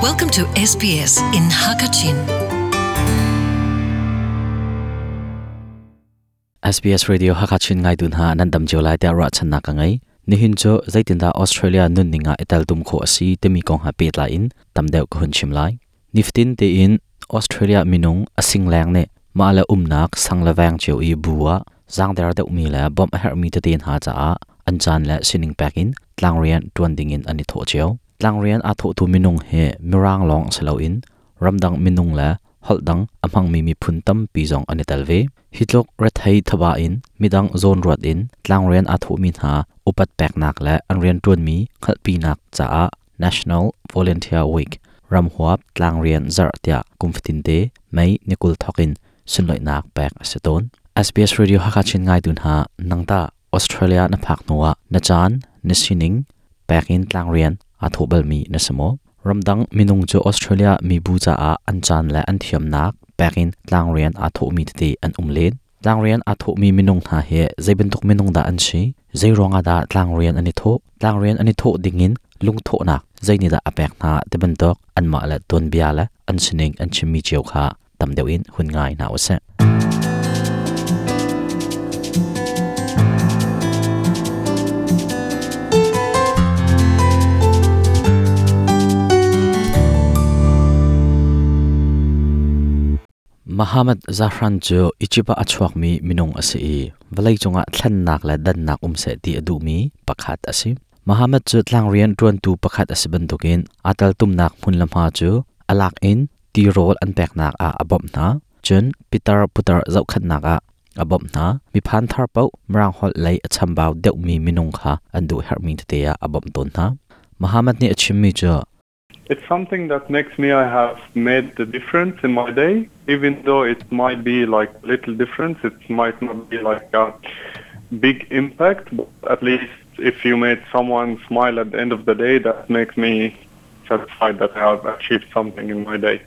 Welcome to SBS in Hakachin. SBS Radio Hakachin ngai dun ha nan dam cio lai tiah ruahchannak ka ngei. Nihin cu zeitindah Australia nunning ah i teltum khawh a si timi kong ha pehtlai in tam deuh ka hun chim lai. Nifatin tein Australia minung a singleng nih mah le umnak sang le veng cio i bu ah zaangder deuhmi le bawmh a herhmi tete hna caah an caan le sining pek in tlangrian ṭuan dingin an i thawh cio. Tlangrian aa thawhtu minung hi Mirang lawng si loin ramdang minung le holh dang a hmangmi miphun tampi zong an i tel ve. Hi tluk rethei thaba in midang zawnruat in tlangrian aa thawhmi hna upat peknak le an rianṭuanmi hngalhpinak caah National Volunteer Week ramhuap tlangrian zarh tiah kum fatinte May ni 20 thawk in sunlawihnak pek a si tawn. SBS Radio Hakha Chin ngaitu hna nangtah Australia na phak hnuah na caan, na sining pek in tlangrian aa thawh balmi na si maw? Ramdang minung cu Australia mibu caah an caan le an thiamnak pek in tlangrian aa thawhmi tete an um len. Tlangrian aa thawhmi minung hna hi zei bantuk minung dah an si? Zei ruangah dah tlangrian an i thawh? Tlangrian an i thawh dingin lungthawhnak zeinihdah a pek hna ti bantuk anmah le tuanbia le an sining an chimmi cio kha tam deuh in hun ngai hna usih. Muhammad Zahran cu Egypt ah a chuakmi minung a si i vawleicung ah thlennak le dannak um seh ti a duhmi pakhat a si. Muhammad cu tlangrian ṭuantu pakhat a si bantukin aa teltumnak hmun le hma cu a lak in tirawl an peknak ah a bawmh hna. Cun pitar putar zohkhenhnak ah a bawmh hna. Miphan thar paoh Mirang holh lei a chambau deuhmi minung kha an duh herhmi tete ah a bawmh tawn hna. Muhammad nih a chimmi cu It's something that makes me I have made the difference in my day, even though it might be like little difference, it might not be like a big impact, but at least if you made someone smile at the end of the day, that makes me satisfied that I have achieved something in my day.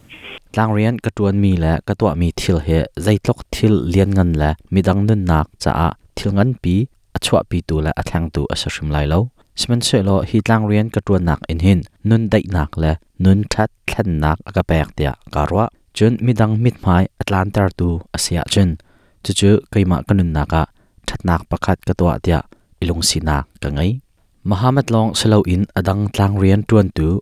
Tlangrian ka ṭuanmi le ka tuahmi thil hi zeitluk thil lianngan le midang nunnak caah thil nganpi a chuahpitu le a thlengtu a si hrim lai lo. Sihmanhsehlaw hi tlangrian ka ṭuannak in hin nun daihnak le nun ṭhat thlennak a ka pek tiah kaa ruah. Cun midang mithmai a tlantertu a si ahcun cucu keimah ka nunnak ah ṭhatnak pakhat ka tuah tiah i lungsinak ka ngei. Muhammad lawng si loin a dang tlangrian ṭuantu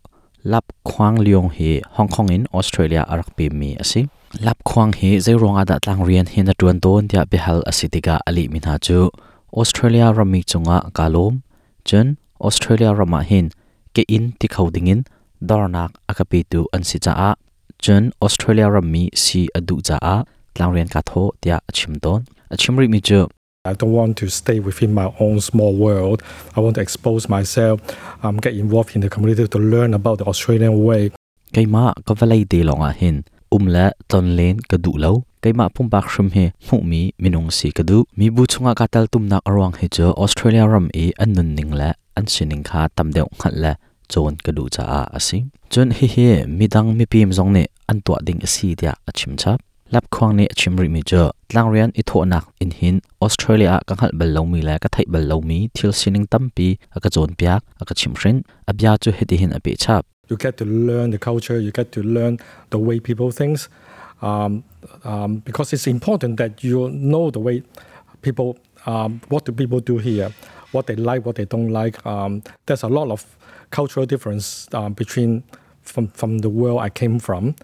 Lap Khuang Leong hi Hong Kong in Australia a rak pemmi a si. Lap Khuang hi zeiruang ah dah tlangrian hi na ṭuan tawn tiah biahal a si tikah a lehmi hna cu Australia rammi cungah kaa lawm. Cun Australia ram ah hin ke inn ti kho dingin dornak a ka petu an si caah cun Australia rammi si a duh caah tlangrian kaa thawh tiah a chim tawn. A chim rihmi cu I don't want to stay within my own small world. I want to expose myself, get involved in the community to learn about the Australian way. Keimah ka vawlei te lawngah hin um le tlonlen ka duh lo. Keimah pumpak hrim hi hmuhmi minung si ka duh. Mibu chungah kaa teltumnak a ruang hi cu Australia ram i an nunning le an sining kha tam deuh hngalh le cawn ka duh caah a si. Cun hihi midang mipim zong nih an tuah ding a si tiah a chim chap. Lapkhuang nih a chim rihmi cu tlangrian i thawhnak in hin Australia ah ka hngalh bal lomi le ka theih bal lomi thil sining tampi a ka cawnpiak, a ka chimhhrinh. A bia cu hitihin a peh chap. You get to learn the culture, you get to learn the way people think, because it's important that you know the way people, what do people do here, what they like, what they don't like. There's a lot of cultural difference between from the world I came from.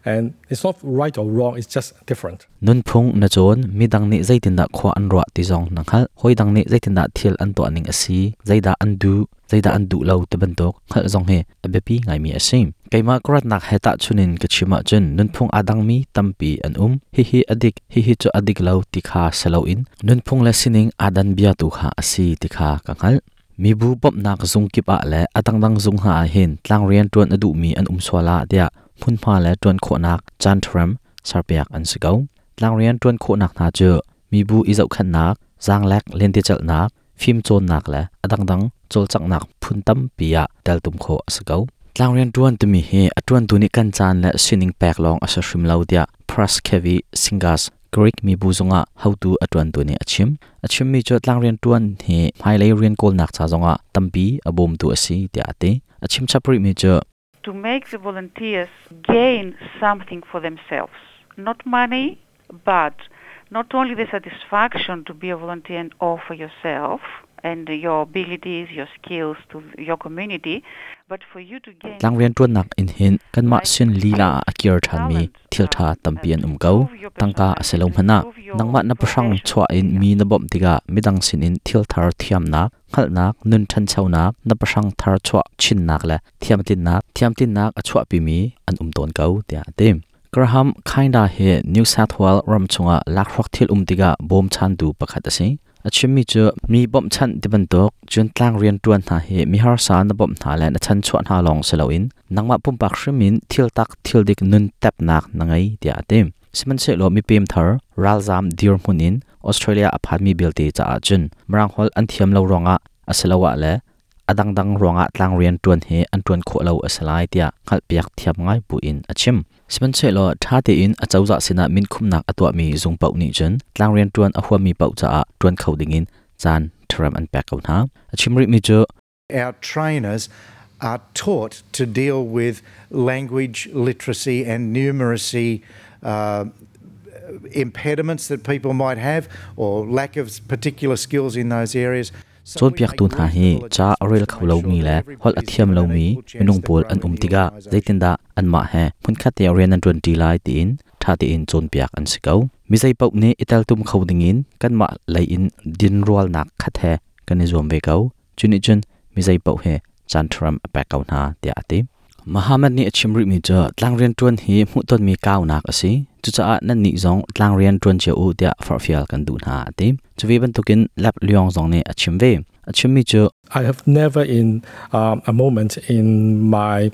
And it's not right or wrong, it's just different. Nunphung na cawn, midang nih zeitindah khua an ruah ti zong na hngalh. Hawidang nih zeitindah thil an tuah ning a si, zeidah an duh, zeidah an duh lo ti bantuk hngalh zong hi a biapi ngaimi a si. Keimah ka ratnak he tahchun in ka chim ahcun nunphung aa dangmi tampi an um. Hihi a dik, hihi cu a dik lo ti kha si loin nunphung le sining aa dan bia tu kha a si ti kha ka hngalh. Mibu bawmhnak zung kip ah le a dangdang zung hna ah hin tlangrian ṭuan a duhmi an um sual ah tiah hmunhma le ṭuan khawhnak caanṭhram serpiak an si ko. Tlangrian ṭuan khawhnak hna cu mibu i zohkhenhnak, zaanglek lentecelhnak, fimcawnnak le a dangdang cawlcanghnak phun tampi ah teltum khawh a si ko. Tlangrian ṭuan timi hi a ṭuantu nih kan caan le sining pek lawng a si hrim lo tiah Praskevi Singas Greek mibu zungah hotu a ṭuantu nih a chim. A chimmi cu tlangrian ṭuan hi hmailei rian kawlnak ca zongah tampi a bawmtu a si tiah a ti. A chim chap rihmi cu To make the volunteers gain something for themselves, not money, but not only the satisfaction to be a volunteer and offer yourself and your abilities, your skills to your community, but for you to gain Tlangrian ṭuannak in hin kanmah sin lila ah a kir ṭhanmi thil ṭha tampi an um ko. Tangka a si lo hmanh ah nangmah na pahrang chuah in mi na bawmh tikah midang sinin thil thar thiamnak, hngalhnak, nun ṭhanchonak, na pahrang thar chuah chinnak le thiamtlinnak, thiamtlinnak a chuahpimi an um tawn ko, tiah a ti. Graham Kinda hi New South Wales ram chungah lakhruak thil um tikah bawmchantu pakhat a si. A chimmi cu mi bawmhchanh ti bantuk cun tlang rianṭuan hna hi mi harsa na bawmh hna le na chanchuah hna lawng si loin nangmah pumpak hrim in thil tak thil dik nun tepnak na ngei tiah a ti. Sihmanhsehlaw mipem thar ralzaam dirhmun in Australia a phanmi belte caah cun Mirang holh an thiam lo ruangah asiloah le a dangdang ruangah tlangrian ṭuan hi an ṭuan khawh lo a si lai tiah hngalhpiak thiam ngai buin a chim. Sihmanhsehlaw ṭha tein a cozah sinah minkhumnak a tuahmi zung paoh nih cun tlangrian ṭuan a huammi paoh caah ṭuan kho dingin caan ṭharem an pek ko hna. A chim rihmi cu Our trainers are taught to deal with language literacy and numeracy impediments that people might have or lack of particular skills in those areas. Cawnpiaktu hna hi ca a rel kho lomi le holh a thiam lomi minung pawl an um tikah zeitindah anmah he hmunkhat te rian an ṭuanṭi lai tiin ṭha tein cawnpiak an si ko. Mi zeipaoh nih i teltum kho dingin kanmah lei in dinrualnak khat he kan i zuam ve ko. Cu nih cun mi zeipaoh hi caan ṭharam a pek ko hna tiah a ti. Muhammad nih a chim rihmi cu tlangrian ṭuan hi hmuhtonmi kaunak a si. Cucaah nannih zong tlangrian ṭuan cio u tiah forhfial kan duh hna a ti. Cu ve bantukin Lap Leong zong nih a chim ve. A chimmi cu I have never in a moment in my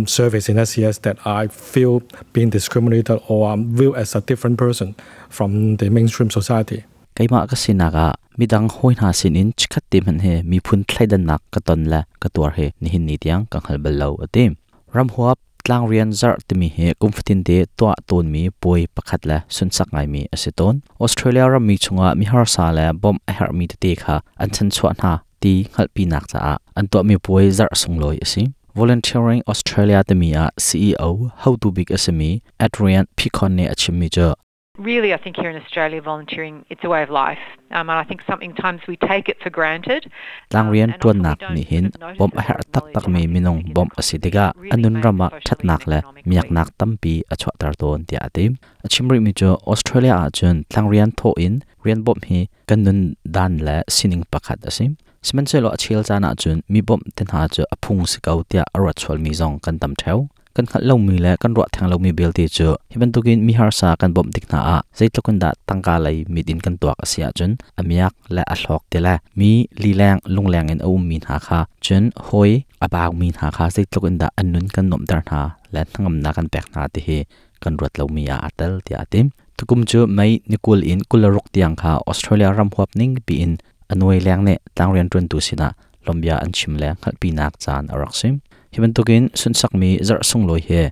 service in SES that I feel being discriminated or viewed as a different person from the mainstream society. Keimah ka sinak ah midang hawi hna sinin chikkhat te hmanh hi miphun thleidannak ka ton le ka tuar hi nihin ni tiang ka hngal bal lo a ti. Ramhuap tlangrian zarh timi hi kum fatin te tuah tawnmi puai pakhat le sunsak ngaimi a si tawn. Australia rammi chungah mi harsa le bawmh a herhmi tete kha an chanchuah hna ti hngalhpinak caah an tuahmi puai zarh sunglawi a si. Volunteering Australia timi ah CEO hotu bik a simi Adrian Picon nih a chimmi cu Really, I think here in Australia, volunteering, it's a way of life. And I think sometimes we take it for granted. Tlangrian ṭuannak nih hin bawmh a herh taktakmi minung bawmh a si tikah a nun ram ah ṭhatnak le miaknak tampi a chuahter tawn tiah a ti. A chim rihmi cu Australia ahcun tlangrian thawh in rian bawmh hi kan nun dan le sining pakhat a si. Sihmanhsehlaw a chel caan ahcun mi bawmh te hna cu a phung si ko tiah a ruat sualmi zong kan tam ṭheo. Kan hngalh lomi le kan ruah theng lomi belte cu hi bantukin mi harsa kan bawmh tik hna ah zeitluk in dah tangka lei mit in kan tuak a si ahcun a miak le a hlawk ti le mi lileng lungleng in a ummi hna kha cun hawi a baumi hna kha zeitluk in dah an nun kan nuamhter hna le hnangamnak kan pek hna ti hi kan ruat lomi ah aa tel tiah a ti. Tukum cu May ni 20 in 26 tiang kha Australia ram huap ning piin a nuai leng nih tlangrian ṭuantu sinah lawmbia an chim le hngalhpinak caan a rak si. Hi bantukin sunhsakmi zarh sunglawi hi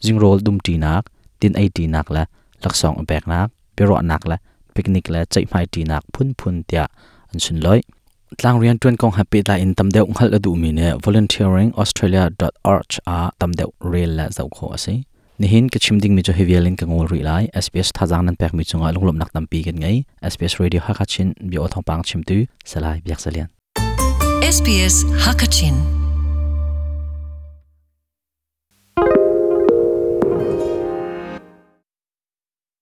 zingrawl dumṭinak, tin eiṭinak le laksawng i peknak, biaruahnak le picnic le ceihmaiṭinak phunphun tiah an sunlawih. Tlangrian ṭuan kong he pehtlai in tam deuh hngalh a duhmi nih volunteeringaustralia.org ah tam deuh rel le zoh khawh a si. Nihin ka chim dingmi cu hi vial in ka ngol rih lai. SBS thazaang nan pekmi cungah lunglawmhnak tampi kan ngei. SBS Radio Hakha Chin bia aw thawngpang chimtu Salai Biak Zalian. SBS Hakachin.